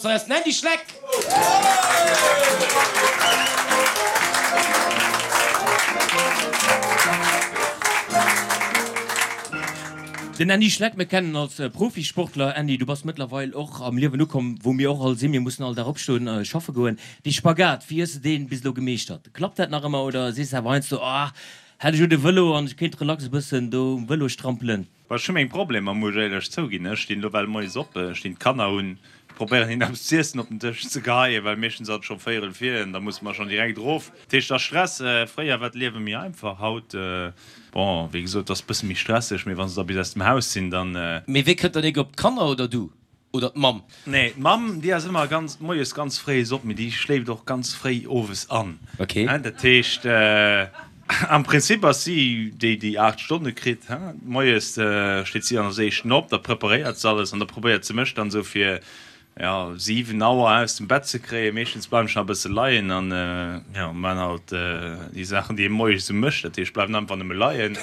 Hei ass den Andy Schleck! Den Andy Schleck, mir kennen en als Profisportler. Andy, du bass mëttlerweil och am Liewen ukomm, wou mir och all sinn. Mir mussen all Dag opstoen a schaffe goen. Dee Spagat, wéi hues de deen bis elo gemeeschtert? Klappt dat nach ëmmer oder sees de awer heiansdo, Ah, hätt ech elo de Vëlo an ech kéint relax e bëssen do um Vëlo strampelen? Bon, ech hu meng Problemer, muss ech éierlech zouginn. Ech stinn elo well moies op, ech stinn d'Kanner hunn, probéieren hinnen eppes z'iessen op den Dësch ze geheien, well meeschtens ass et scho véierel vir an da musse mer schonn direkt erof. Dat heescht, et ass Stress. Fréier war d'Liewe méi einfach, haut, bon, wéi gesot, et ass e bësse méi stresseg, mee wa se da bis aus dem Haus sinn, dann. Mee wee kënnt dann éiger op, d'Kanner oder du? Oder d'Mamm? Nee, d'Mamm, déi ass ëmmer ganz, moies ganz fréi op, mee déi schléift och ganz fréi owes an. Ok. Dat heescht, am Prinzip ass si déi, déi 8 Stonne kritt. Moies steet si als éischten op, da preparéiert se alles an da probéiert se mech dann esou fir jo, 7 Auer aus dem Bett ze kréien. Meeschtens bleiwen ech nach e bësse leien an jo, man halt déi Saachen, déi ee moies esou mécht. Dat heescht, bleiwen einfach nëmme leien.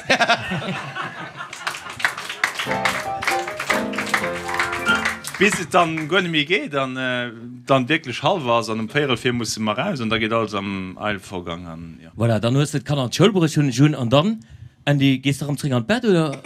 Bis et dann guer net méi geet an dann wierklech hallwer ass an um véierel vir musse mer raus an da geet alles am Eilvorgang an jo. Voilà, dann hues de d'Kanner an d'Schoul bruecht, hunn ech un. An dann, Andy, gees de erëm zréck an d'Bett oder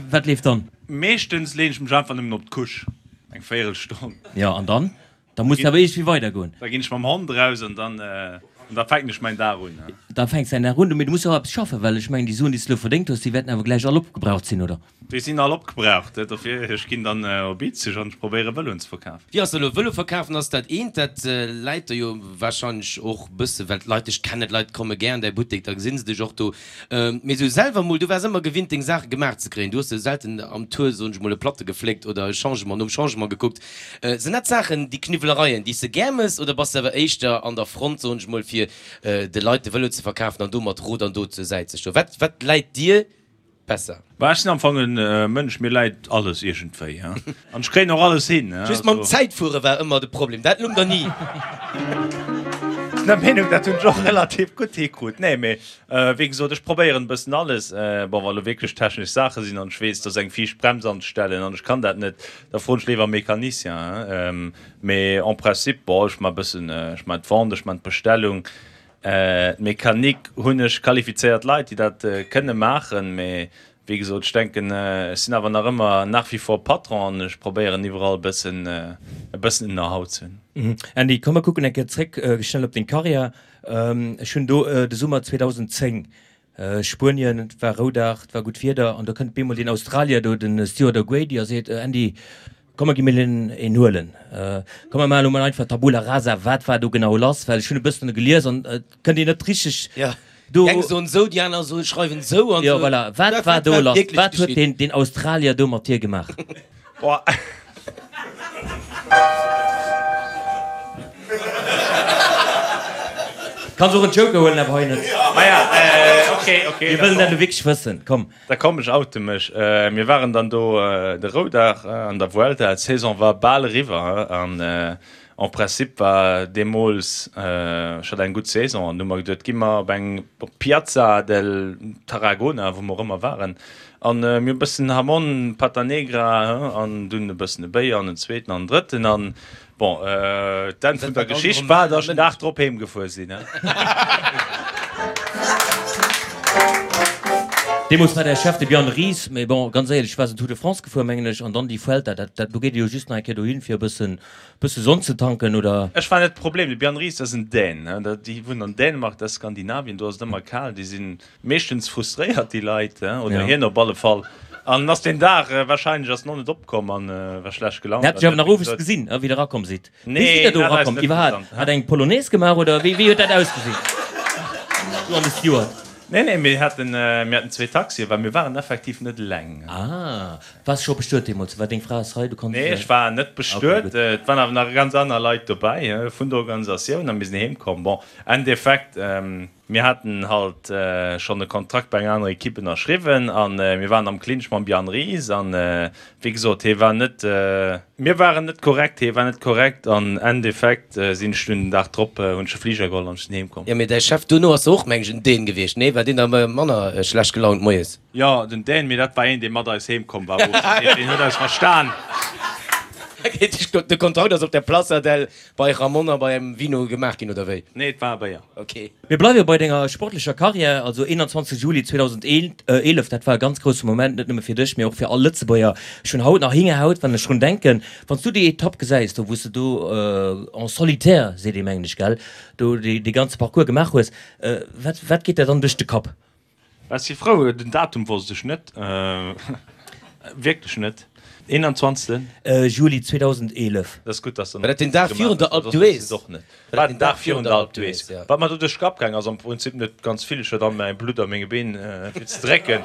wat leeft dann? Meeschtens leen ech mech einfach nëmmen op d'Couche. Eng Véierelstonn. Jo, an dann? Da muss awer iergendwéi weidergoen. Da ginn ech mam Hond eraus an dann, an da fänken ech mäin Dag un. Da fänks däin Dag un. Mee du muss jo och eppes schaffen, well ech mengen, déi Suen, déi s de elo verdéngt hues, déi wäerten awer gläich all opgebraucht sinn, oder? Déi sinn all opgebraucht. Dofir, ech ginn dann op Izeg an ech probéiere Vëloen ze verkafen. Wéi ass dat elo? Vëlo verkafen ass dat eent, dat läit der jo warscheinlech och e bësse, well d'Leit dech kennen, d'Leit komme gär an däi Buttek, da gesi se dech och do. Mee sou selwer mol, du waars ëmmer gewinnt deng Saache gemaach ze kréien. Du hues jo selten am Tour, soen ech mol, e Platte gefléckt oder e Changement nom Changement gekuckt. Sinn dat Saachen, déi Kniwwelereien, déi s de gär mëss oder bass de awer éischter an der Front, soen ech mol, fir de Leit de Vëlo ze verkafen an do mat Rot an Dot zur Säit ze stoen? Wat, wat läit dir besser? Bah, ech sinn am Fong en Mënsch, mir läit alles iergendwéi, an ech kréien och alles hin. Just mam Zäitfuere war ëmmer de Problem, dat lung der ni. Sinn der Meenung, dat hunn ech och relativ gutt hikrut. Nee, mee wéi gesot, ech probéieren e bëssen alles. Bon, wa lo wierklech technesch Saache sinn an ech weess, et ass eng viischt Brems anzestellen an ech kann dat net, da froen ech léiwer e Mecanicien. Mee en principe, bon, ech maache bëssen, ech maachen d'Vente, ech maachen d'Bestellung, D'Mechanik hunn ech qualifizéiert Leit, déi dat kënne maachen, mee wéi gesot, ech denken, ech sinn awer nach ëmmer nach wie vor Patron an ech probéieren iwwerall e bëssen, e bëssen en Know-how ze hunn. Andy, komm mer kucken eng Kéier zréck schnell op deng Karriär. Ech hunn do de Summer 2010 Spuenien, et war Roudag, et war gutt Wieder an do kënnt bemol deen Australier do, den Stuart O'Grady a seet, Andy, komm mer gi mir een huelen, komm mer maachen elo mol einfach Tabula rasa, wat war do genau lass, well ech hunn e bëssen gelies an et kënnt een net richteg do. Déi eng soen esou, déi aner soen, schreiwen esou an esou. Jo, voilà, wat war do lass, wat huet deen Australier do mat dir gemaach? Boah. Kanns och en Joker huelen, awer hei net. Maja, ok, ok. Mir wëllen dat elo wierklech wëssen, komm. Da komm, ech oute mech. Mir waren dann do de Roudag an der Vuelta, d'Saison war bal eriwwer an en principe war deemools, ech hat eng gutt Saison an du hu mer geduet, gi mer op eng op d'Piazza del Tarragona, wou mer och ëmmer waren, An mir hu bëssen Hamon, Pata Negra, an dunn e bëssen e Béier an en zweeten an en drëtten. An bon, d'Enn vun der Geschicht war, datt ech den Dag drop heem gefuer sinn. Deemools war däi Chef de Bjarne Riis, mee bon, ganz éierlech, du waars den Tour de France gefuer, mengen ech, an dann déi Vuelta, dat, dat, do geet ee jo just nach eng Kéier dohin, fir e bëssen, bësse Sonn ze tanken, oder? Ech war net de Problem. De Bjarne Riis ass en Dän, déi wunnen an Dänemark, dat ass Skandinavien, do ass et ëmmer kal, déi sinn Meeschtens frustréiert déi Leit, oder hien op alle Fall. An ass deen Dag wahrscheinlech ass en och net opkomm an war schlecht gelaunt. Hat sech awer nach owes gesinn, wéi der erakomm sidd. Wéi sidd der do erakomm iwwerhaapt? Hat eng Polonaise gemaach oder wéi huet dat ausgesinn? Du an de Steward. Nee, nee, mir haten, mir haten zwee Taxien, well mir waren effektiv net eleng. Ah, waars scho bestuet deemools? War deng Fra ass hei, du konns. Nee, ech war net bestuet. Et waren awer nach ganz aner Leit dobäi vun der Organisatioun a mir sinn heem komm. Bon, Endeffekt, Mir haten halt schonn e Kontrakt bei enger anerer Ekipp ënnerschriwwen a mir waren am Clinch mam Bjarne Riis an wéi gesot, hie war net, mir waren net korrekt, hie war net korrekt an Endeffekt sinn ech dunn den Dag drop, hunn ech e Fliger geholl an ech sinn heem komm. Jo, mee däi Chef duerno ass jo och, meng ech, en Dän gewiescht, nee? War deen da manner schlecht gelaunt moies? Jo, den Dän, mee dat war een, dee mat eis heem komm war, deen huet eis verstan. De Kontrakt ass op der Plaza del bei Ramon a bei engem Vino gemaach ginn, oder wéi? Nee, et war e Béier. Ok. Mir bleiwe bei denger sportlecher Karriär, also 21 Juli 2011, dat war e ganz grousse Moment, net nëmme fir dech, mee och fir all Lëtzebuerger. Ech hunn haut nach Hingerhaut, wann ech drun denken. Wann s du déi Etapp gesäis, do wou s de do en solitaire, seet ee mengen ech, gell, do dee ganze Parcours gemaach hues, wat, wat geet der dann duerch de Kapp? Ech si frou, den Datum wosst ech net, wierklech net. 21. Juli 2011. Dat ass gutt, dass War dat den Dag virun der Alpe d'Huez? War den Dag virun der Alpe d'Huez. Wat mer do duerch de Kapp gaang ass, am Prinzip net ganz vill. Ech hat all mäi Blutt a menge Been fir ze drécken.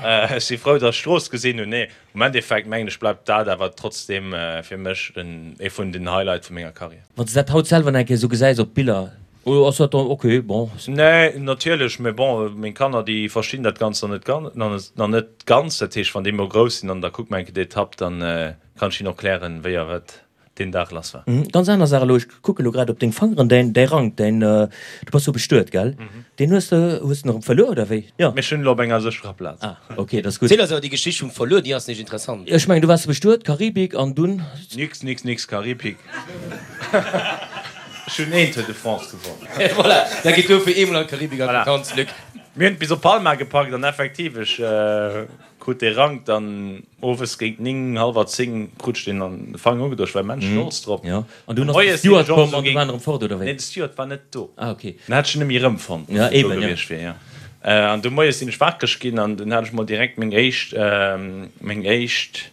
Ech si frou, dass ech d'Strooss gesinn hunn. Nee, am Endeffekt mengen ech bleift dat awer trotzdeem fir mech ee vun den Highlight vu menger Karriär. Wann s de dat haut selwer nach eng Kéier esou gesäis op Biller, Oder ass dat dann ok, bon. Nee, natierlech, mä bon, meng Kanner, déi verstinn dat Ganzt nach net ganz, nach net ganz. Dat heescht, wann déi mol grouss sinn an da kucke mer eng Kéier d'Etapp, dann kann ech hinnen och klären, wéi a wat deen Dag lass war. Ganz aner Saach elo, ech kucke elo grad op deng Fangeren, däin, däi Rank, däin, du bass jo bestuet, gell? Deen hues de, hues de en erëm verluer, oder wéi? Jo. Mee ech hunn elo op enger sécherer Plaz. Ah, ok, dat ass gutt. Ziel eis awer déi Geschicht vum Verluer, déi ass nämlech interessant. Ech mengen, du waars bestuet, Karibik, an dunn? Nix, nix, nix Karibik. Ech hunn een Tour de France gewonnen. Voilà, da geet dofir eemol an d'Karibik an d'Vakanz, Luc. Mir hunn et bis op Palma gepackt an effektiv, ech krut dee Rank dann owes géint 9, hallwer 10 krut ech deen an de Fanger ugedoen. Ech war immens stolz drop. Jo, an dunn ass de Steward komm an du war en erëm fort, oder wéi? Nee, de Steward war net do. Ah, ok. Den hätt ech net méi erëmfonnt, wann en do gewiescht wier, jo. An du moies sinn ech wakereg ginn an dunn hat ech mol direkt meng éischt, meng éischt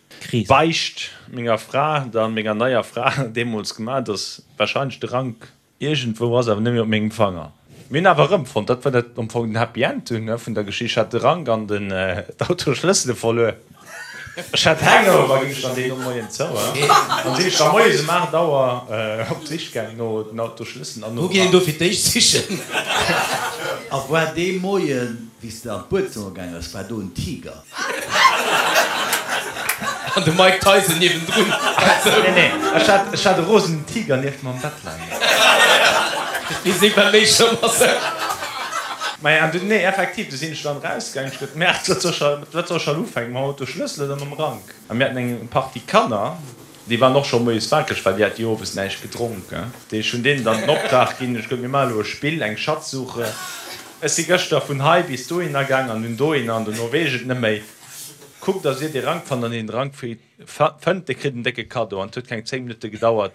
Beicht menger Fra, dann menger neier Fra deemools gemaach, dass Wahrscheinlech de Rank iergendwou ass, awer net méi op mengem Fanger. Mir hunn awer erëmfonnt, dat war dat am Fong den Happy End dunn vun der Geschicht, ech hat de Rank an den d'Autoschlëssele verluer. Ech hat Hangover, ginn ech dann deen Moien zou an sinn ech da moies um 8 Auer op d'Sich gaang no den Autoschlësselen an nom Wou geet een Rank. do fir d'éischt sichen? A war dee Moien, wéi s de an d'Buedzëmmer gaang ass, war do en Tiger? An de Mike Tyson niewendrun. Nee, nee, ech hat, ech hat e rosenen Tiger nieft mer am Bett leien. Dee seet bei méi schlëmm ass. Maja, an dunn, nee, effektiv, du sinn ech dann erausgaangen, ech gesot, Merde, wat soll ech, wat soll ech haut ufänken, mam Autoschlëssel oder mam Rank? A mir haten eng Partie Kanner, Déi waren och scho moies wakereg, well déi hate jo owes näischt gedronk. Ech hunn deenen dann den Optrag ginn, ech gesot, mir maache elo e Spill, eng Schatzsuche. Ech si gëschter vun hei bis dohinner gaang an dunn dohinner an dono weess ech et net méi. Kuckt, dass dir dee Rank fannt an deen de Rank fënnt, dee kritt en décke Kaddo. An et huet keng 10 Minutte gedauert,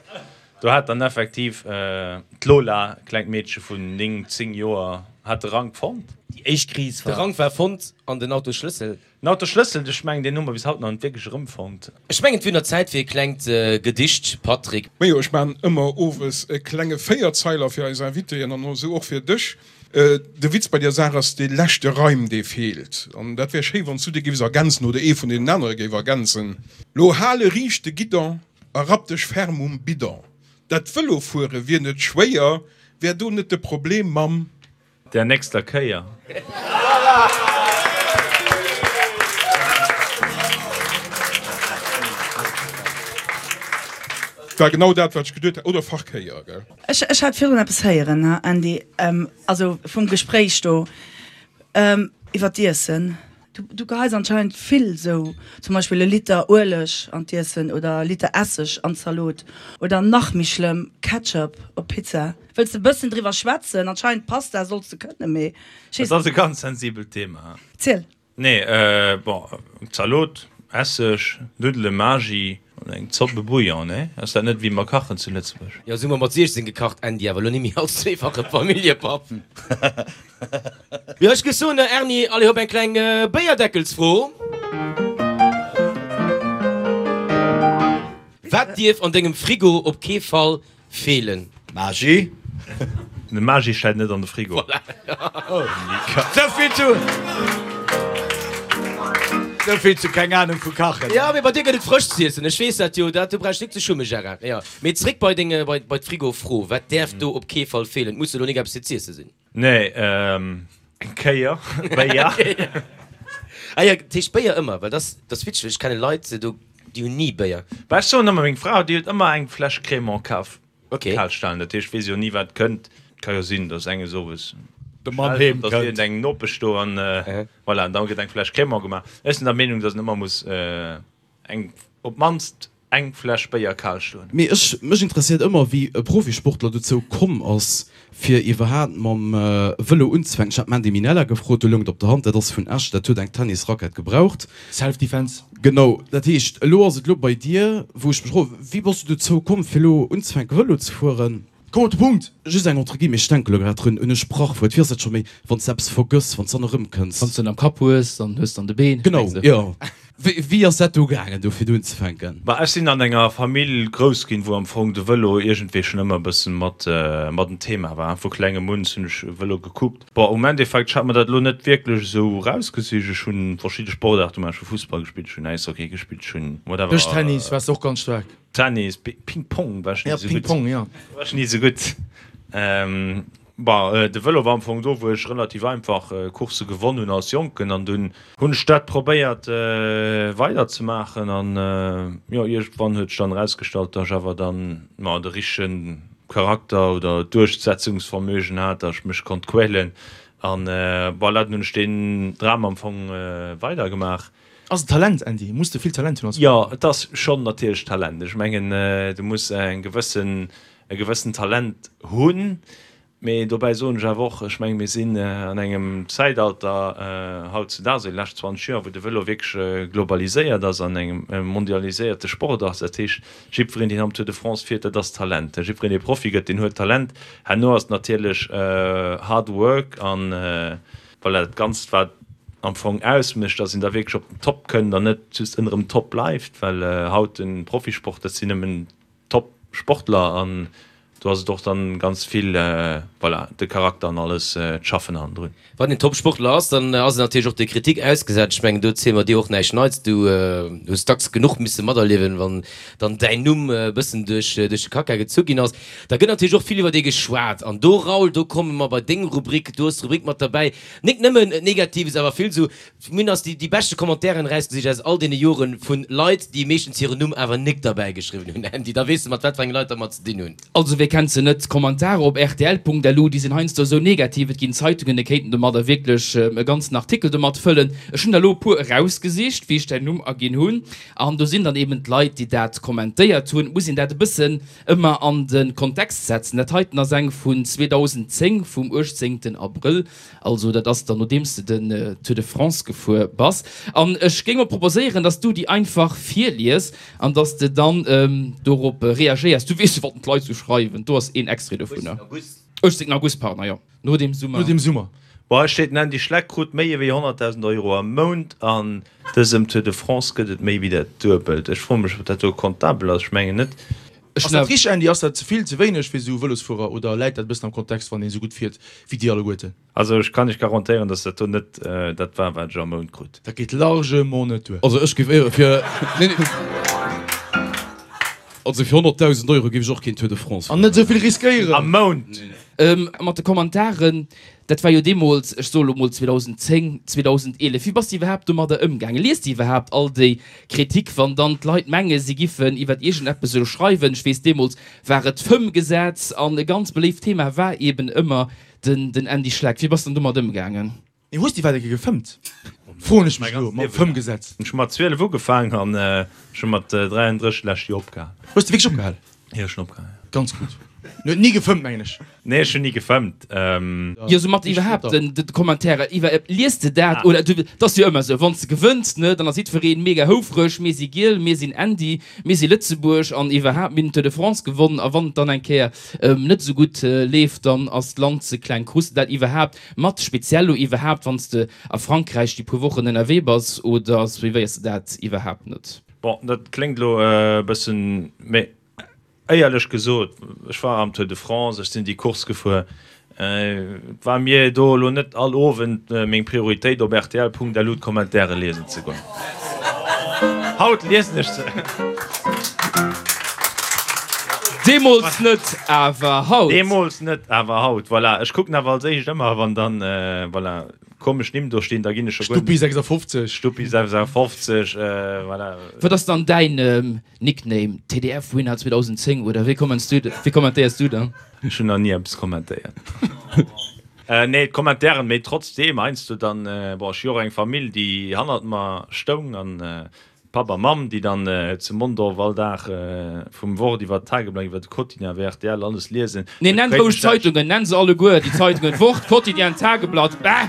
do hat dann effektiv d'Lola, e klengt Meedche vun 9, 10 Joer, hat de Rank fonnt. Déi éischt Kris war. De Rank war fonnt an den Autosschlëssel. Den Autoschlëssel, ech mengen deen hu mer bis haut nach net wierklech erëmfonnt. Ech mengen et wier nach Zäit fir e klengt Gedicht, Patrick. Majo, ech maan ëmmer owes e klenge Véierzeiler fir eis Invitéen an esou och fir dech. De Witz bei der Saach ass dee leschte Reim, dee feelt. An dat wär schéi, wann s du dee géifs ergänzen oder ee vun deenen anere géif ergänzen. Lo hale riicht de Guidon a rapp dech ferm um Bidon. Dat Vëlofuere wier net schwéier, wär do net de Problem mam. Der nächster Kéier. War genau dat wat ech geduet hat, oder Verkéier, gell? Ech hat virdrun eppes héieren, Andy, also vum Gespréich do iwwer d'Iessen. Du geheis anscheinend vill sou, zum Beispill e Liter Ueleg an d'Iessen oder e Liter Esseg an d'Zalot oder nach méi schlëmm, Ketchup op Pizza. Wëlls de bëssen driwwer schwätzen? Anscheinend Pasta solls de kënnen, mee ech weess. Dat ass e ganz sensibelt Thema. Ziel. Nee, bon, Zalot, Esseg, Nuddelen, Magi an eng Zopp, e Bouillon, nee? Ass dat net wéi mer kachen zu Lëtzebuerg? Jo, sou hu mer mat 16 gekacht, Andy, awer elo nimmi als zweefache Familljepapp. Jo, ech géif soen, Erni, allez hop, eng kleng Béierdeckelsfro. Wat dierf an dengem Frigo op kee Fall feelen? Magi. De Magi stellt net an de Frigo. Souvill zu, souvill zu keng Ahnung vu kachen. Jo, mee bei dir gëtt et frësch z'iessen, ech weess dat jo, dat do brauchs nik ze schummen, Gérard. Jo, mee zréck bei deng, bei d'Frigofro, Wat däerf do op kee Fall feelen? Et muss jo elo nik eppes fir z'iessen sinn. Nee, eng Kéier Béier. Ah jo, dat heescht Béier ëmmer, well dat ass witzeg, ech kenne Leit do, déi hunn ni Béier. Bah, ech soen ëmmer, meng Fra, déi huet ëmmer eng Fläsch Crémant kaf, Ok. kal stalen. Dat heescht, weess jo ni wat kënnt. Et ka jo sinn, datt enges owes De Mann schellt, heem datt kënnt. iergend eng Nopesch do an voilà, an da gëtt eng Fläsch Crémant gemaach. Ech sinn der Meenung, datt een ëmmer muss eng op d'mannst. Eng Fläsch Béier kal stoen. Mee ech, mech interesséiert ëmmer wéi e Profisportler dozou komm ass fir iwwerhaat mam Vëlo unzefänken. Ech hat d'Mandy Minella gefrot, do loung et op der Hand, dat ass vun Esch, dat huet eng Tennisrackett gebraucht. Self Defense. Genau, dat heescht elo ass et elo bei dir, wou ech mech froen, wéi bass du dozou komm fir elo unzefänke Vëlo ze fueren? Komm op de Punkt! Just eng entre guillemets, ech denke lo grad drun, un e Sprachwuert, wéi ass dat scho méi, wann s de eppes vergëss, wann s dann erëmkënns? Wann s de en am Kapp hues, dann hues de an de Been, Genau, mengs de? jo. Wéi, wéi ass dat do gaangen, do fir do unzefänken? Bah, ech sinn an enger Famill grouss ginn, wou am Fong de Vëlo iergendwéi schonn ëmmer e bëssen mat, mat en Thema war. Vu klengem un hunn ech Vëlo gekuckt. Bon, um Endeffekt, ech hat mer dat elo net wierklech esou erausgesicht. Ech hunn verschidde Sportaarte gemaach, ech hu Fussball gespillt, ech hunn Äishockey gespillt, ech hunn whatever. Dëschtennis waars de och ganz staark. Tennis, Ping Pong war ech ni esou gutt. Ping Pong, jo. War ech ni esou gutt. Bon, de Vëlo war am Fong do, wou ech relativ einfach Coursse gewonn hunn als Jonken an dunn hunn ech dat probéiert weider ze maachen an jo, iergendwann huet sech dann erausgestallt, datt ech awer dann, ma, de richtege Charakter oder Duerchsetzungsvermögen hat, datt ech mech konnt quälen an voilà, dunn hunn ech deen Dram am Fong weidergemaach. Ass et Talent, Andy? Muss de vill Talent hunn als Jo, et ass schonn natierlech Talent. Ech mengen, du muss eng gewëssen, e gewëssen Talent hunn. Mee dobäi soen ech awer och, ech menge mir sinn an engem Zäitalter hautzudaags, déi lescht 20 Joer, wou de Vëlo wierklech globaliséiert ass an engem mondialiséierte Sport ass. Dat heescht, jiddwereen, deen am Tour de France fiert, dat ass Talent. Jiddwereen, dee Profi gëtt, deen huet Talent. Herno ass et natierlech Hard Work an Voilà, dat Ganzt wat am Fong ausmécht, dass een da wierklech op den Top kënnt an net just ënnerem Top bleift, well haut de Profisport, dat sinn nëmmen Top-Sportler an do ass et och dann ganz vill, voilà, de Charakter an alles, d'Schaffen hannendrun. Wann een Top-Sportler ass, dann ass en natierlech och der Kritik ausgesat. Ech mengen, do ziele mer dir och näischt Neits. Du hues dacks genuch misse materliewen, wann dann däin Numm e bëssen duerch de Kacka gezu ginn ass. Da gëtt natierlech och vill iwwer dee geschwat. An do, Raoul, do komme mer bei deng Rubrik. Du hues d'Rubrik mat derbäi. Nik nëmmen Negatives, awer vill esou. Mir hunn eis déi beschte Commentairen erausgesicht aus all deene Jore vu Leit, déi meeschtens hiren Numm awer nik derbäi geschriwwen hunn. Andy, da weess de, mat wat fir enge Leit der mer ze dinn hunn. Also wie kennt se net, d'Kommentare op rtl.lu, déi sinn heiansdo esou negativ, et ginn Zeitungen, déi kéinten domadder wierklech e ganzen Artikel domat fëllen. Ech hunn der elo e puer erausgesicht, wéi ech däin Numm aginn hunn, an do sinn dann eben d'Leit, déi dat kommentéiert hunn. Et muss een dat e bëssen Ëmmer an de Kontext setzen. Dat heiten ass eng vun 2010, vum 18 Abrëll, also dat ass dann nodeems de den Tour de France gefuer bass. An ech géing mol proposéieren, dass du déi einfach virlies an dass de dann dorop reagéiers. Du weess jo, wat d'Leit sou schreiwen. Do ass een Extrait dovunner. 18 August, pardon, jo. No dem Summer. No dem Summer. Bon, hei steet, den Andy Schleck krut méi ewéi 100.000 Euro am Mount. An dësem Tour de France gëtt et méi wéi dat Duebelt. Ech froe mech, ob dat do comptabel ass. Ech mengen net. Ass dat richteg, Andy? Ass dat ze vill, ze wéineg fir esou Vëlosfuerer oder läit dat e bëssen am Kontext, wann een esou gutt fiert wéi dir alleguerten? Also ech kann iech garantéieren, dass dat do net dat war, wat ech am Mount krut. Dat geet largement net duer. Also ech géif éiere fir, nee, nee, also fir 100.000 Euro géif ech och keen Tour de France An net esou vill riskéieren. Am Mount! Mat de Kommentaren, dat war jo deemools, ech soe lo mol 2010, 2011. Wéi bass de iwwerhaapt domadder ëmgaangen? Liest de iwwerhaapt all déi Kritik, wann dann d'Leit menge si giffen iwwer iergendeppes elo schreiwen? Ech weess, deemools war et d'Fëmmgesetz an e ganz beléift Thema war eben ëmmer Den den Andy Schleck, wéi bass de dann domat ëmgaangen? Nee, hues de iwwerhaapt eng Kéier gefëmmt? Froen ech mech elo, mam Fëmmgesetz. Ech hu mat 12 ugefaangen an ech hu mat 33 d'lescht Joer opgehal. Hues de wierklech opgehal? Jo, ech hunn opgehal, jo. Ganz gutt. En huet ni gefëmmt, mengen ech. Nee, ech hunn ni gefëmmt. Jo, sou mat iwwerhaapt den de Kommentairer iwwer, lies de dat oder du, et ass jo ëmmer esou, wann s de gewënns, ne, dann ass jiddwereen mega houfreg, mir si giel, mir sinn Andy, mir si Lëtzebuerg an iwwerhaapt, mir hunn den Tour de France gewonnen a wann et dann eng Kéier net esou gutt leeft, dann ass d'Land ze kleng. Krus de dat iwwerhaapt mat, speziell lo iwwerhaapt wann s de a Frankräich déi puer Wochen ënnerwee bass, oder suivéiers de dat iwwerhaapt net? Bon, dat kléngt elo e bëssen, mee éierlech gesot, ech war am Tour de France, ech sinn déi Course gefuer, Et war mir do elo net all Owend meng Prioritéit op rtl.lu d'Kommentäre liesen ze goen. Haut liesen ech se. Deemools net, awer haut. Deemools net, awer haut. Voilà, ech kucken awer als éischt ëmmer, wann dann, voilà, komesch Nimm do stinn, da ginn ech scho guer. Stuppi 56. Stuppi 56, voilà. Wat ass dann däin Nickname? TDF Winner 2010 oder wéi kommentéiers du dann? Ech hunn nach ni eppes kommentéiert. Nee, d'Kommentairen, mee trotzdeem heiansdo dann, bon, ech hu jo och eng Famill, déi hannert mer stoung an. Papp a Mamm, déi dann zu Mondorf all Dag vum Wort iwwer d'Tageblatt, iwwer de Quotidien, iwwer rtl alles liesen. Nee, nenn roueg d'Zeitungen, nenn se alleguer, déi Zeitungen, Wort, Quotidien, Tageblatt, bäh!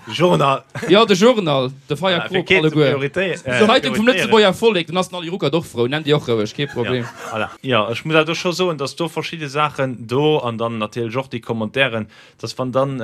De Journal. Jo, de Journal, de Feier Krop, alleguer. D'Zeitung vum Lëtzebuerger Vollek, dann ass den Ali Ruckert och frou, nenn déi och roueg, kee Problem. Voilà. Jo, ech muss awer do scho soen, dass do verschidde Saachen do an dann natierlech och déi Commentairen, dass wann dann,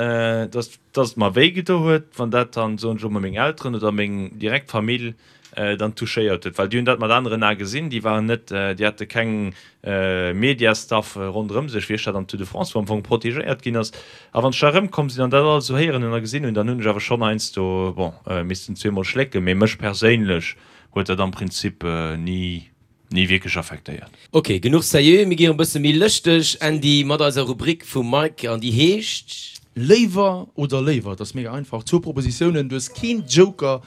dass, dass et mer wéi gedo huet, wann dat dann, soen ech elo mol, meng Elteren oder meng direkt Famill dann touchéiert huet, well déi hunn dat mat aneren Ae gesinn, déi waren net, déi hate keng Mediastaff ronderëm sech, wéi ech dat am Tour de France, wou am Fong protegéiert ginn ass. A wann ech da erëmkomm sinn an dat alles esou héieren hunn a gesinn hunn, dann hunn ech awer schonn heiansdo, bon, missten zweemol schlécken, mee mech perséinlech huet dat am Prinzip ni Ni wierklech affektéiert. Ok, genuch seriö, mir gi erëm bësse méi lëschteg, Andy, mat eiser Rubrik vum Mike an déi heescht. Léiwer oder léiwer, et ass mega einfach, zwou Propositiounen, du hues keen Joker,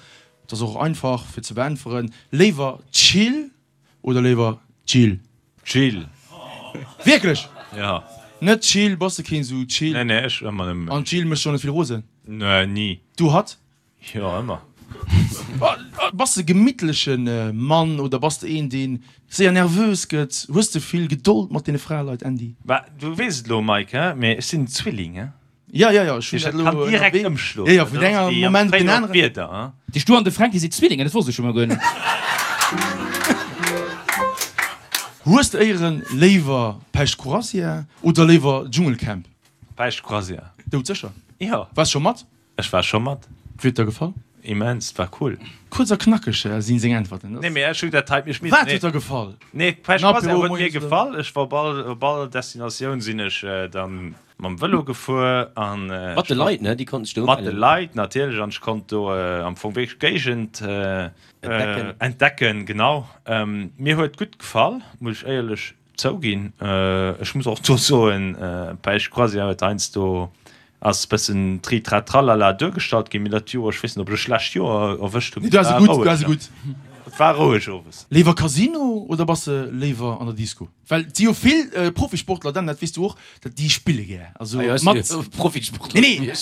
et ass och einfach fir ze beäntweren, léiwer Chill oder léiwer Jill? Jill. Wierklech? Jo. Net Chill, bass de keen sou Chill? Nee, nee, ech ëmmer nëmmen. An d'Jill mécht och net vill rosen? Nee, ni. Du hatt? Jo, ëmmer. Bass de gemittleche Mann oder bass de een deen séier nervös gëtt? Hues de vill Gedold mat deene Fraleit, Andy? Bah, du weess et elo, Mike, he, mee ech sinn en Zwilling, he. Ja, ja, ja, ech hunn dat elo kann direkt ëmschloen. Ja, ja, vun engem Moment op den aneren. Wieder, he. Déi Stu an de Fränki si Zwillingen, dat wosst ech scho mol guer net. Hues de éieren léiwer Päischt Croisière oder léiwer Dschungelcamp? Päischt Croisière. Doudsécher? Jo. Waars scho mat? Ech war scho mat. Wéi huet der gefall? Immens, war cool. Kuerz a knackeg sinn seng Äntwerten. Nee mee ech hu dat hei, ech misst. Wat huet der gefall? Nee d'Päischt Croisière huet mir gefall. Ech war op all, op all Destinatioun sinn ech dann mam Vëlo gefuer an. Mat de Leit ne, déi konnten sech do umellen. Mat de Leit natierlech an ech konnt do am Fong wierklech d'Géigend entdecken. Entdecken, genau. Mir huet gutt gefall, muss ech éierlech Zouginn. Ech muss och do soen, Päischt Croisière huet heiansdo ass bëssen tri-tra-tralala duergestallt ginn, mee dat Joer, ech weess net, ob ech e schlecht Joer erwëscht hunn, mee et war roueg. Et war roueg owes. Léiwer Casino oder bass de léiwer an der Disco? Well et si jo vill Profisportler, Dan, dat weess du och, dat déi spille gär. Also mat. Profisportler. Nee, nee,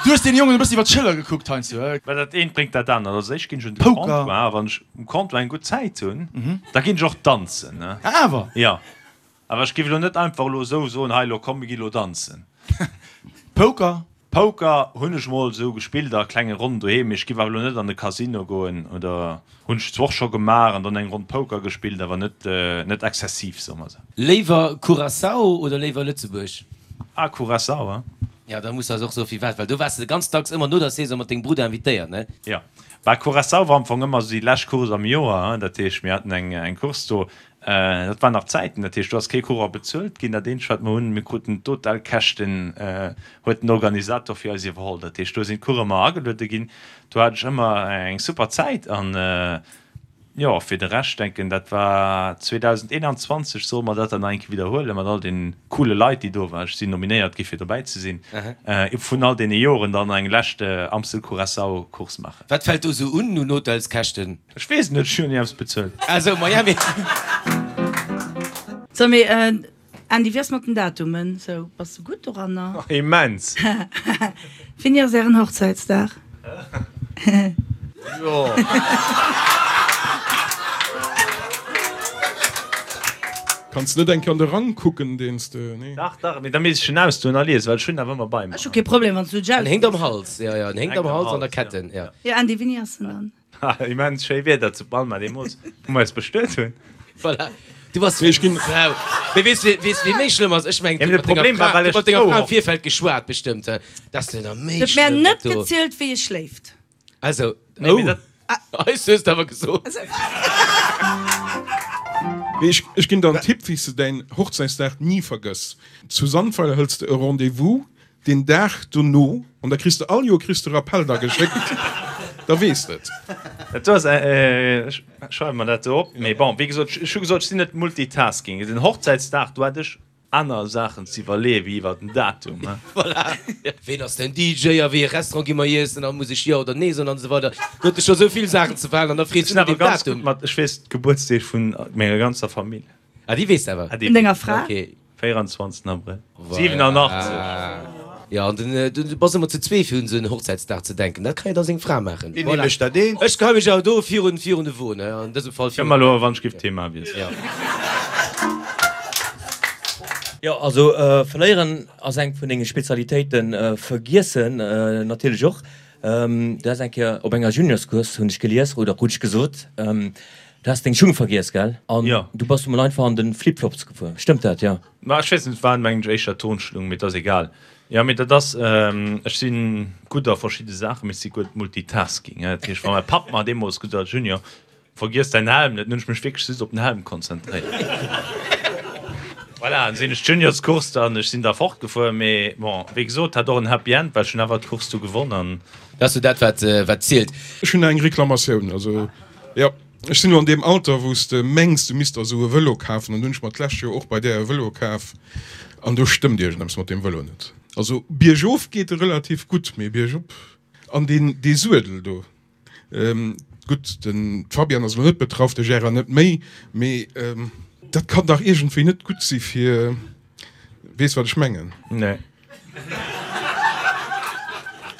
du hues deene Jongen e bëssen iwwer d'Schëller gekuckt heiansdo. Well dat eent bréngt dat anert. Also ech ginn ech un de Comptoir a wann ech um Comptoir eng gutt Zäit hunn, da ginn ech och danzen. Ah, awer? Jo. Awer ech géif elo net einfach elo esou soen, hei elo komm mir gi elo danzen. Poker? Poker hunn ech mol esou gespillt a klenge Ronnen doheem, mee ech géif awer elo net an de Casino goen oder hunn ech zwar och scho gemaach an dann eng Ronn Poker gespillt, awer net net exzessiv, soe mer esou. Léiwer Curaçao oder léiwer Lëtzebuerg? Ah, Curaçao, hein? Jo, da muss eis och soe firwat, well do waars de ganz dacks ëmmer no der Saison mat dengem Brudder invitéiert, ne? Jo. Bah, Curaçao war am Fong ëmmer esou déi lescht Course am Joer, hein. Dat heescht, mir haten eng eng Course do, dat waren nach Zäiten, dat heescht, do ass kee Coureur bezuelt ginn. Dat eenzegt, wat mer hunn, mir kruten d'Hotelkäschten, huet den Organisator fir eis iwwerholl. Dat heescht, do sinn d'Coureuren ëmmer ageluede ginn. Do hat ech ëmmer eng super Zäit an, Jo, fir de Rescht denken, dat war 2021, solle mer dat dann nach eng Kéier widderhuelen mat all den coole Leit, déi do waren. Ech sinn nominéiert gi fir dobäi ze sinn, vun all deene Joren dann eng lescht Amstel Curaçao Course maachen. Wat fält do sou un un Hotelskäschten? Ech weess et net, ech hunn jo ni eppes bezuelt. Ah sou, Miami. So, mee Andy, wéi ass mat den Datumen? Sou, bass de gutt doranner? Immens! Wéini ass ären Hochzäitsdag? Jo. Kanns net eng Kéier an de Rang kucken, deen s de, nee? Dach, dach, mee da misst ech en ausdoen a liesen, well ech hunn awer ëmmer bei mer. Ech hu kee Problem, wann s du en En héngt am Hals, jo, jo, en héngt am Hals an der Ketten, jo. Jo, Andy, wéini ass en dann? Ha, immens schéi Wieder zu Palma deemools, wou mer eis bestuet hunn. Voilà, du bass Mee ech ginn. Sau. Mee weess de, weess de, wéi méi schlëmm ass? Ech mengen, Ja, mee de Problem war, well ech mat denger Fra am Virfeld geschwat bestëmmt, he? Dat ass jo nach méi Huet mär schlëmm, net dat do. gezielt, wéi e schléift. Also, Nee, mee oh, dat. eis hues de awer gesot. Mee ech, ech ginn der en Tipp, wéi s de däin Hochzäitsdag ni vergëss. Zu Sandweiler hëls de e Rendez-vous Deen Dag dono, an da kriss de all Joer kriss de Rappell da geschéckt, da weess de et. Dat do ass, ech schreiwe mer dat do op. Mee bon, wéi gesot, ech hu gesot, ech sinn net multitasking. Den Hochzäitsdag, do hat ech aner Saachen ze iwwerleeë wéi iwwer den Datum. Voilà. Ween ass den DJ a wéi e Restaurant gi mer iessen a muss ech Jo oder Nee soen an esou weider. Do huet e scho sou vill Saachen ze verhalen an da freet Ech se sinn no awer dem ganz gutt Datum. mat, ech weess d'Gebuertsdeeg vun menger ganzer Famill. Ah, déi weess de awer. Ah, déi Vun denger weess ech. Fra? Okay. 24 Abrëll Voilà. 87. Jo, an den, du bass ëmmer ze zwee fir un esou en Hochzäitsdag ze denken. Dat kann jo da seng Fra maachen. Wéini mécht dat een? Ech geheie mech awer do virun, virun de Won, an dësem Fall virun. Komm elo, wann ech giff d'Thema wiesselen. Jo. Jo, also verléieren ass eng vun denge Spezialitéiten, vergiessen natierlech och. Du has eng Kéier op enger Juniorscourse, hunn ech gelies, oder krut ech gesot, du has deng Schung vergiess, gell? An du bass emol einfach an de Flip-Flops gefuer, stëmmt dat? Jo. Ma ech weess net, et war mengen ech éischter Turnschlung, mee et ass egal. Jo, mee dat ass, ech si gutt a verschidde Saachen, mee ech si gutt Multitasking. Dat heescht, wa mäi Papp mer deemools gesot huet, Junior, vergiess däin Helm net, dann hunn ech mech wierklech just op den Helm konzentréiert. Voilà, dann sinn ech d'Juniorscourse dann, ech sinn da fortgefuer, mee bon, wéi gesot, hat och en Happy End, well ech hunn awer d'Course du gewonn an. Dat ass jo dat, wat, wat zielt. Ech hunn eng Reklamatioun, also jo. Ech sinn elo an deem Alter, wou s de mengs, du misst der esou e Vëlo kafen. An du hunn ech mer d'lescht Joer och bei där e Vëlo kaf. An do stëmmt iergendeppes mat deem Vëlo net. Also biergof geet e relativ gutt, mee biergop. An deen, dee Suedel do, gutt, den Fabian ass elo net betraff, de Gérard net méi, mee dat kann dach iergendwéi net gutt si fir, weess wat ech mengen? Nee.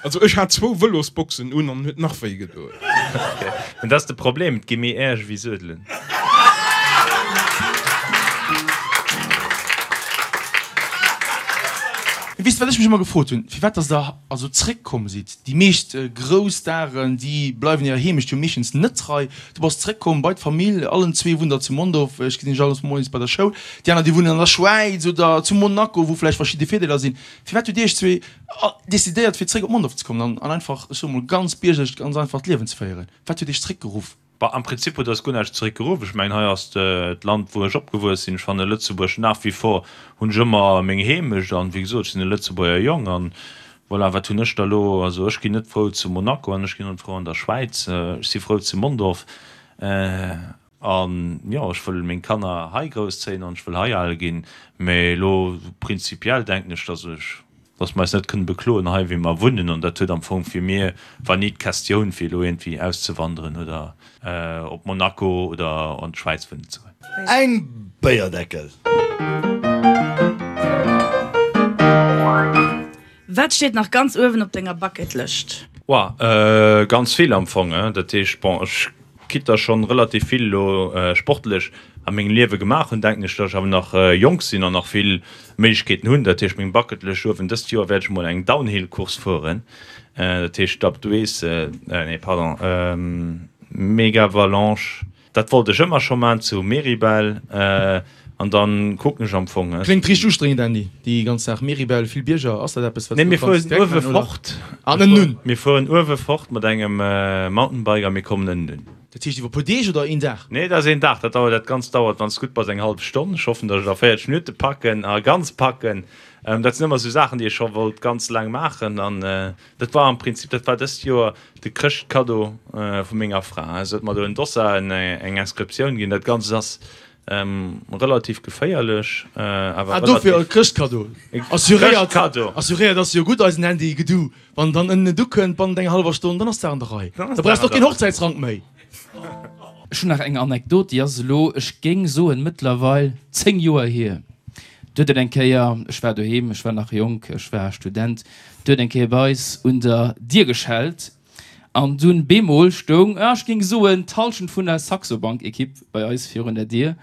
Also ech hat zwou Vëlosboxen un an huet nach wéi gedoen. Mä dat ass de Problem, et gi méi Äerch ewéi Suedelen. Weess de wat ech mech ëmmer gefrot hunn, firwat dass der also zréck komm sidd? Déi meescht grouss Staren déi bleiwen hirer Heemecht jo meeschtens net trei. Du bass zréck komm bei d'Famill, allen zwee wunnt der zu Mondorf, ech gesinn iech alles moies bei der Schoul. Déi aner déi wunnen an der Schwäiz oder zu Monaco, wou vläicht verschidde Virdeeler sinn. Firwat hutt Dir iech zwee decidéiert fir zréck op Mondorf ze kommen an an einfach, ech soe mol ganz biergerlech, ganz einfach d'Liewen ze féieren? Wat huet iech zréck geruff? Bah, am Prinzip huet eis guer näischt zeréck geruff. Ech mengen, hei ass d'Land wou ech opgewuess sinn. Ech fanne Lëtzebuerg nach wie vor, hunn ech ëmmer meng Heemecht an wéi gesot, ech sinn e Lëtzebuerger Jong an voilà, wat hunn ech da lo? Also ech ginn net frou zu Monaco an ech ginn och net frou an der Schwäiz. Ech si frou zu Mondorf. An jo, ech wëll meng Kanner hei grousszéien an ech wëll hei al ginn. Mä elo prinzipiell denken ech, dass ech, dass mer eis net kënnen bekloen hei wéi mer wunnen. An dat huet am Fong fir mir, war ni d'Questioun fir elo iergendwéi auszewanderen oder op Monaco oder an d'Schwäiz wunnen ze goen. Eng Béierdeckel. Wat steet nach ganz uewen op denger Bucketlëscht? Woah, ganz vill am Fong. Dat heescht, bon, ech quitte der schonn relativ vill elo sportlech a mengem Liewe gemaach hunn, denken ech, datt ech awer nach jonk sinn an nach vill Méiglechkeeten hunn. Dat heescht, meng Bucketlëscht uewen, dëst Joer wäert ech emol eng Downhill-Course fueren, dat heescht d'Alpe d'Huez, nee pardon, Megavalanche. Dat wollt ech ëmmer scho maan zu Meribel an dann kucken ech am Fong. Kléngt richteg ustrengend Andy, déi ganz Saach Meribel, vill Bierger, ass dat eppes wat s du kanns direkt maan oder? An ënnen un? Mir fueren uewe fort mat engem Mountainbike a mir kommen ënnen un. Dat heescht iwwer puer Deeg oder een Dag? Nee, dat ass een Dag, dat dauert, dat Ganzt dauert wann s gutt bass eng hallef Stonn. Ech hoffen dass ech et a 40 Minutte packen a ganz packen. Dat sinn ëmmer sou Saachen déi ech scho wollt ganz laang maachen an dat war am Prinzip, dat war dëst Joer De Chrëschtkaddo vu menger Fra. Se huet mer do en Dossard, eng Inscriptioun ginn. Dat Ganzt ass relativ geféierlech, awer Ah, dofir e Chrëschtkaddo. Assuréiert, assuréiert ass jo gutt, eisen Andy Gedu. Wann dann ënnen et ukënnt, bannent enger hallwer Stonn, dann ass d'Saach an der Rei. Da brauchs de och keen Hochzäitsrank méi. Ech hunn nach eng Anekdot, déi ass elo, ech géing soen, mëttlerweil 10 Joer hier. Do huet et eng Kéier, ech war doheem, ech war nach jonk, ech war Student, Do huet eng Kéier bei eis un der Dier geschellt an dunn bemol stoung, ech géing soen, d'Halschent vun der Saxo Bank Equipe bei eis virun der Dier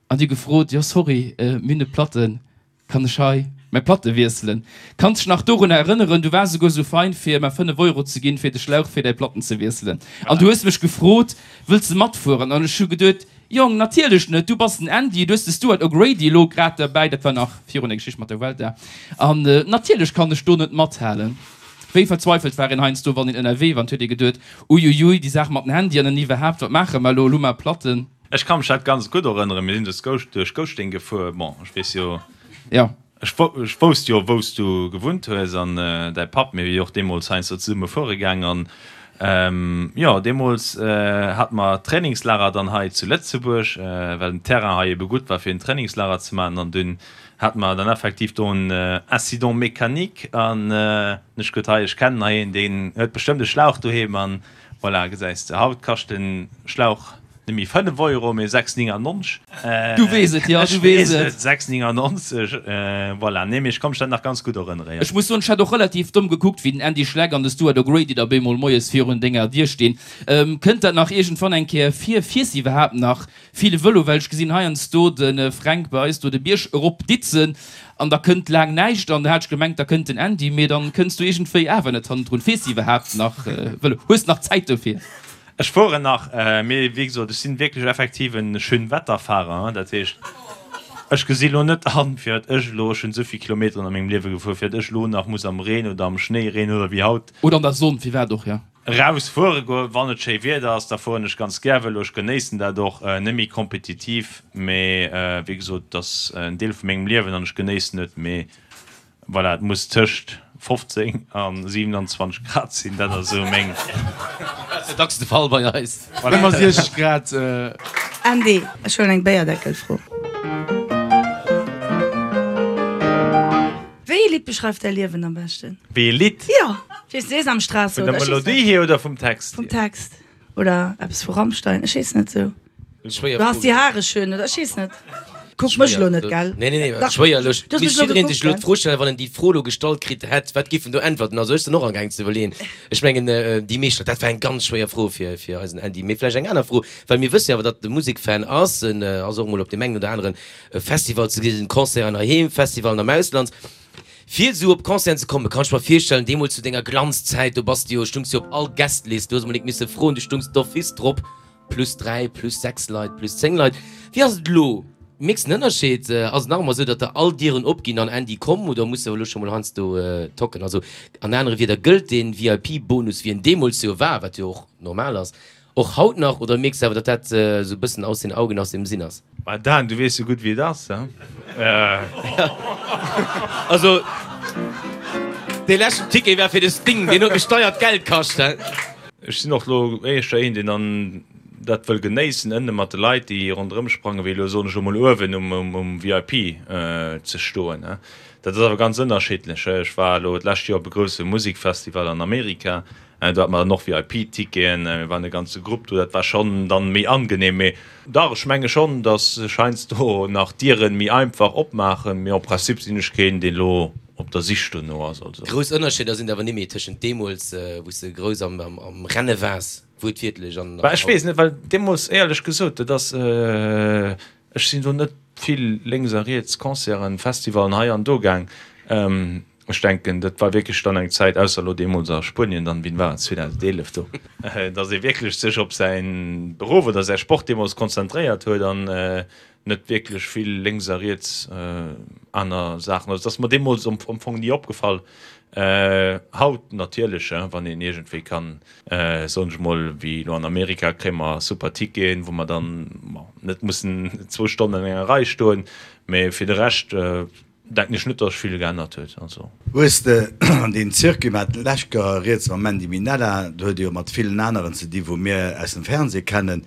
an déi hu gefrot, jo sorry, mir hunn e Platten, kann ech hei mäi Platte wiesselen? Kanns dech nach dorunner erënneren, du waars esouguer esou fein fir mer 5 Euro ze ginn fir de Schlauch fir däi Platten ze wiesselen an du hues mech gefrot, wëlls de matfueren? An ech hu geduet, Jong, natierlech net, du bass den Andy, du hues de Stuart O'Grady elo grad derbäi, dat war nach virun der Geschicht mat der Vuelta, an natierlech kann ech do net mathalen. Wéi verzweifelt war een heiansdo, wann een ënnerwee war, an 't huet ee geduet, Uiuiui, déi Saach mat den Handyen an iwwerhaapt, wat maache mer elo, elo hu mer Platten. Ech ka mech dat ganz gutt erënneren, mir sinn duerch Gouschteng gefuer, bon, ech weess jo. Jo. Ech wousst jo wou s du gewunnt hues an däi Papp, mir si jo och deemools heiansdo zesumme fuere gaang an jo deemools hate mer Trainingslager dann hei zu Lëtzebuerg, well den Terrain hei ebe gutt war fir en Trainingslager ze maachen an dunn hate mer dann effektiv do en Incident mécanique an ech gutt hei ech kennen hei een deen huet bestëmmt e Schlauch doheem an voilà gesäis de haut kascht en Schlauch. net méi 5 Euro, mee 6,99. Du weess et, jo, du weess et. 6,99, voilà. Nee, mee ech ka mech dat nach ganz gutt erënnere, jo. Ech muss soen, ech hat och relativ domm gekuckt, wéi den Andy Schleck an de Stuart O'Grady da bemol moies virun denger Dier stinn. Kënnt dat nach iergendwann eng Kéier vir? Fiers de iwwerhaapt nach vill Vëlo? Well ech gesinn heiansdo de Fränk bei eis do de Bierg erop ditzen an da kënnt laang näischt an da hat ech gemengt, da kënnt den Andy, mee dann kënns du iergendwéi awer net hannendrun. Fiers de iwwerhaapt nach Vëlo? Hues de nach Zäit dofir? Ech fueren nach, mee wéi gesot, ech sinn wierklech effektiv en Schönwetterfahrer. Dat heescht, ech gesi lo net an, firwat ech elo, ech hunn esou vill Kilometeren a mengem Liewe gefuer, firwat ech elo nach muss am Reen oder am Schnéireen oder wéi haut, Oder an der Sonn, firwat och, jo. Eraus fuere goen. Wann et schéi Wieder ass, da fueren ech ganz gär Vëlo. Ech genéissen dat och, net méi kompetitiv, mee wéi gesot, et ass en Deel vu mengem Liewen an ech genéissen et. Mee voilà, et muss tëscht 15 a 27 Grad sinn, dat ass esou meng. Dat ass jo dacks de Fall bei eis. Ëmmer 60 Grad. Andy, ech huelen eng Béierdeckelfro. Wéi ee Lidd beschreift däi Liewen am beschten? Wéi ee Lidd? Jo, ech weess, Sesamstraße Vun der oder ech weess Melodie net. hier oder vum Text Vum hier? Text. Oder eppes vu Rammstein, ech weess net sou. Schwéier Du hast Fro. die Haare schön oder ech weess net. Kuck mech elo net, gell? Nee, nee, nee, Dach, schwéier elo. du hast mech Misst elo jiddereen sech gekuckt, elo gell? d'Fro stellen, wann en déi Fro elo gestallt kritt hätt, wat giff en do äntwerten? Also ech sinn och amgaang ze iwwerleeën. Ech mengen, déi meescht Leit, dat war eng ganz schwéier Fro fir, fir eisen Andy. Mee vläicht eng aner Fro, well mir wësse jo awer, datt de Musekfan ass, en ass och emol op deem engen oder aneren E Festival ze gesinn, Concerten heiheem, Festivalen am Ausland. Fir esou op Concerten ze kommen, kann ech mer virstellen, deemools zu denger Glanzzäit, do bass de jo, stungs jo op all Guestlist, du hues emol nik misse froen, du stungs d'office drop, plus 3, plus 6 Leit, plus 10 Leit. Wéi ass et elo? Mierks de en Ënnerscheed? Ass et nach ëmmer esou, datt der all Dieren opginn an Andy komm, oder muss de elo scho mol heiansdo tocken? Also an anere Wieder, gëllt dee VIP-Bonus, wéi en deemools jo war, wat jo och normal ass, Och haut nach, oder mierks de awer, datt dat esou e bëssen aus den Augen, aus dem Sinn ass? Bah Dan, du weess sou gutt wéi et ass, he? Also, dee leschten Ticket war fir de Sting, deen huet mech deiert Geld kascht, he? Ech sinn och lo éischter een, deen dann dat wëll genéissen, ënne mat de Leit, déi ronderëm sprangen, wéi elo, soen ech emol, uewen um VIP ze stoen, he? Dat ass awer ganz ënnerschiddlech, he? Ech war elo d'lescht Joer op e grousse Musikfestival an Amerika, Do hate mer dann och VIP-Ticketen, mir waren e ganze Grupp do, dat war schonn dann méi angenehm. Mee dach, ech menge schonn, datt sech heiansdo nach Dieren méi einfach opmaachen, mee en principe sinn ech keen, deen elo op der Sich dono ass. Also. Grouss Ënnerscheeder sinn et awer nimméi tëschent deemools, wou s de grouss am Renne waars, wuertwiertlech, an Bah, ech haut. weess net, well deemools, éierlech gesot, dat ass, ech sinn do net vill lénks a riets Concerten, Festivalen hei an do gaang. Ech denken, dat war wierklech dann eng Zäit, ausser elo deemools a Spuenien, dann, wien war et, 2011 do, datt ee wierklech sech op säi Beruff oder säi Sport deemools konzentréiert huet an net wierklech vill lénks a riets aner Saachen. Also et ass mer deemools am Fong ni opgefall. Haut natierlech, wann een iergendwéi kann, soen ech mol, wéi elo an Amerika, kréie mer super Ticketen, wou mer dann, bon, net mussen zwou Stonnen an enger Rei stoen, mee fir de Rescht, Denken ech net dass sech vill geännert huet also. Hues de an deem Circuit, mer haten d'lescht Joer rieds mam Mandy Minella, do huet e jo mat villen aneren ze di wou mir aus dem Fernseh kennen,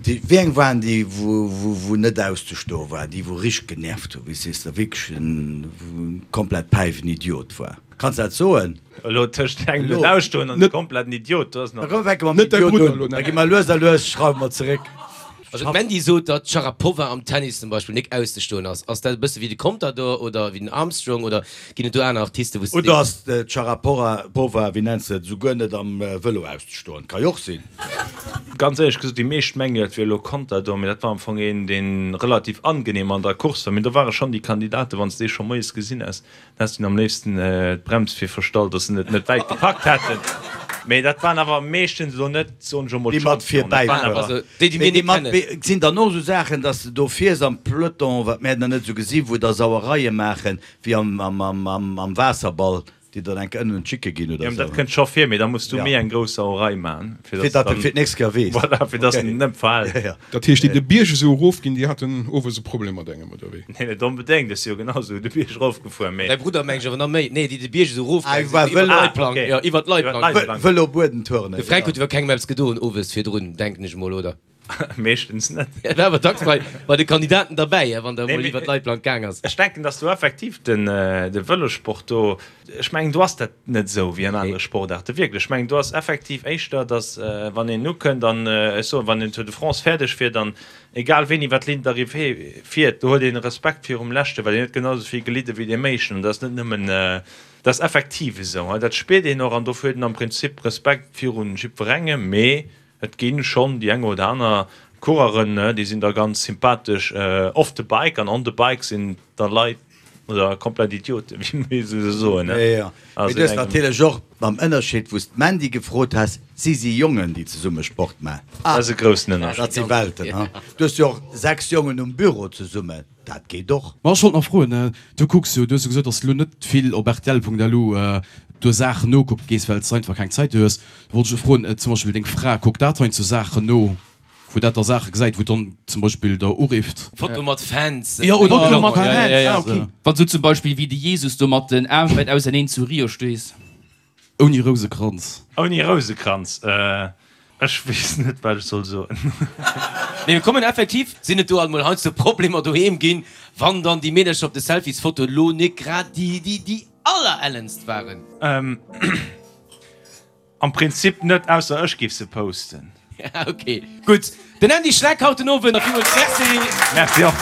déi, wéi eng waren déi wou wou net auszestoe war, déi wou richteg genervt hu, wéi s sees de, wierklech en komplett päiwen Idiot war? Kanns dat soen? Elo tëscht engem net ausstoen an e kompletten Idiot, do ass nach. Da komm fänke mer mam Idiot un, da gi mer lues a lues, schrauwe mer zeréck. Also d'Mandy sot, datt d'Sharapova am Tennis zum Beispill nik auszestoen ass. Ass dat e bësse wéi de Contador oder wéi den Armstrong oder ginn et do aner Artisten, wou s de Oder ass d'Sharapova, wéi nenns de et, esouguer net am Vëlo auszestoen? Ka jo och sinn. Ganz éierlech gesot, déi meescht mengen, et wier elo Contador, mee dat war am Fong een, dee relativ angenehm an der Course war. Mee do ware schonn déi Kandidaten, wann s de dee scho moies gesinn häss, Häss dunn am léifsten d'Brems fir verstallt, dass se net net wäit gepackt hätten. Mee dat waren awer meeschtens elo net, soen ech emol, Déi mat d'Championen. Dat waren virbäifueren. awer. Also déi, déi Mee mir déi net mat kennen. et sinn dann och esou Saachen, dass de do fiers am Peloton, wat mär dann net esou gesinn, wou da Sauereie maachen, wéi am am am am Waasserball, déi dann enke ënnen un d'Schicke ginn oder Jo, dat esou. kënnt scho vir, mee da muss du Ja. méi eng grouss Sauerei maachen, fir Fir dass datt de dann, fir d'nächst Kéier weess. voilà, fir dass Okay. en net verhält. Ja, ja. Dat heescht, déi de Bierg esou erofginn, déi haten owes e Problem mat engem, oder wéi? Nee, net onbedéngt, ech si jo genau sou de Bierg erofgefuer, mee. Däi Brudder mengt ech awer nach méi. Nee, déi de Bierg esou Ah, erofgaange war sinn, iwwer Vëlo. d'Leitplank. Ah, okay. Jo, iwwer d'Leitplank. Iwwer d'Leitplank. Vëlo Buedentournée, De Fränk genau. huet iwwer kengem eppes gedoen owes virdrun, denken ech mol, oder? Meeschtens net. Et war awer dacks bei, bei de Kandidaten derbäi, wann der emol iwwer d'Leitplank gaang ass. Ech denken, dass do effektiv den, de Vëlossport do, ech mengen, do ass dat net esou wéi an anere Sportaarte wierklech. Ech mengen, do ass effektiv éischter, dass wann een ukënnt an, ech soen, wann een Tour de France fäerdeg fiert an egal ween iwwer d'Ligne d'arrivée fiert, do huet een Respekt virum Leschten, well deen huet genau esou vill gelidde wéi deem Éischten. An dat ass net nëmmen, dat ass effektiv esou, dat spiert een och an dofir huet een am Prinzip Respekt virun jiddwerengem. Mee Et ginn schonn déi eng oder aner Coureuren, déi sinn da ganz sympathesch off the bike an on the bike sinn da Leit oder komplett Idioten, wéi mir se soen. Jo, jo. Mee du hues natierlech och mam Ënnerscheed, wou s d'Mandy gefrot has, si si Jongen, déi zesumme Sport maachen. Dat ass e groussen Ënnerscheed. Dat si Welten, ha. Du hues jo och 6 Jongen um Büro zesummen, dat geet och. Ma ech wollt nach froen, du kucks jo, du hues jo gesot, datt s du elo net vill op rtl.lu do Saachen nokucke gees, well s de einfach keng Zäit hues. Wollt ech froen, zum Beispill deng Fra, kuckt dat heiansdo Saachen no, wou dat da Saache gesäit, wou dann zum Beispill der urifft? Foto mat Fans. Jo, oder Foto mat Fans, ah ok. Wann s du zum Beispill wéi de Jesus do mat den Aarm wäit auserneen zu Rio stees. Ouni Rousekranz. Ouni Rousekranz, ech weess net wat ech soll soen. Mee mir kommen effektiv, sinn et do alt mol heiansdo Problemer doheem ginn, wann dann déi Meedercher op de Selfiesfotoen lo nik grad déi déi déi allerellenst waren? Am Prinzip net, ausser ech giff se posten. Ok, gutt. Den Andy Schleck haut den Owend. Villmools Merci. Merci och.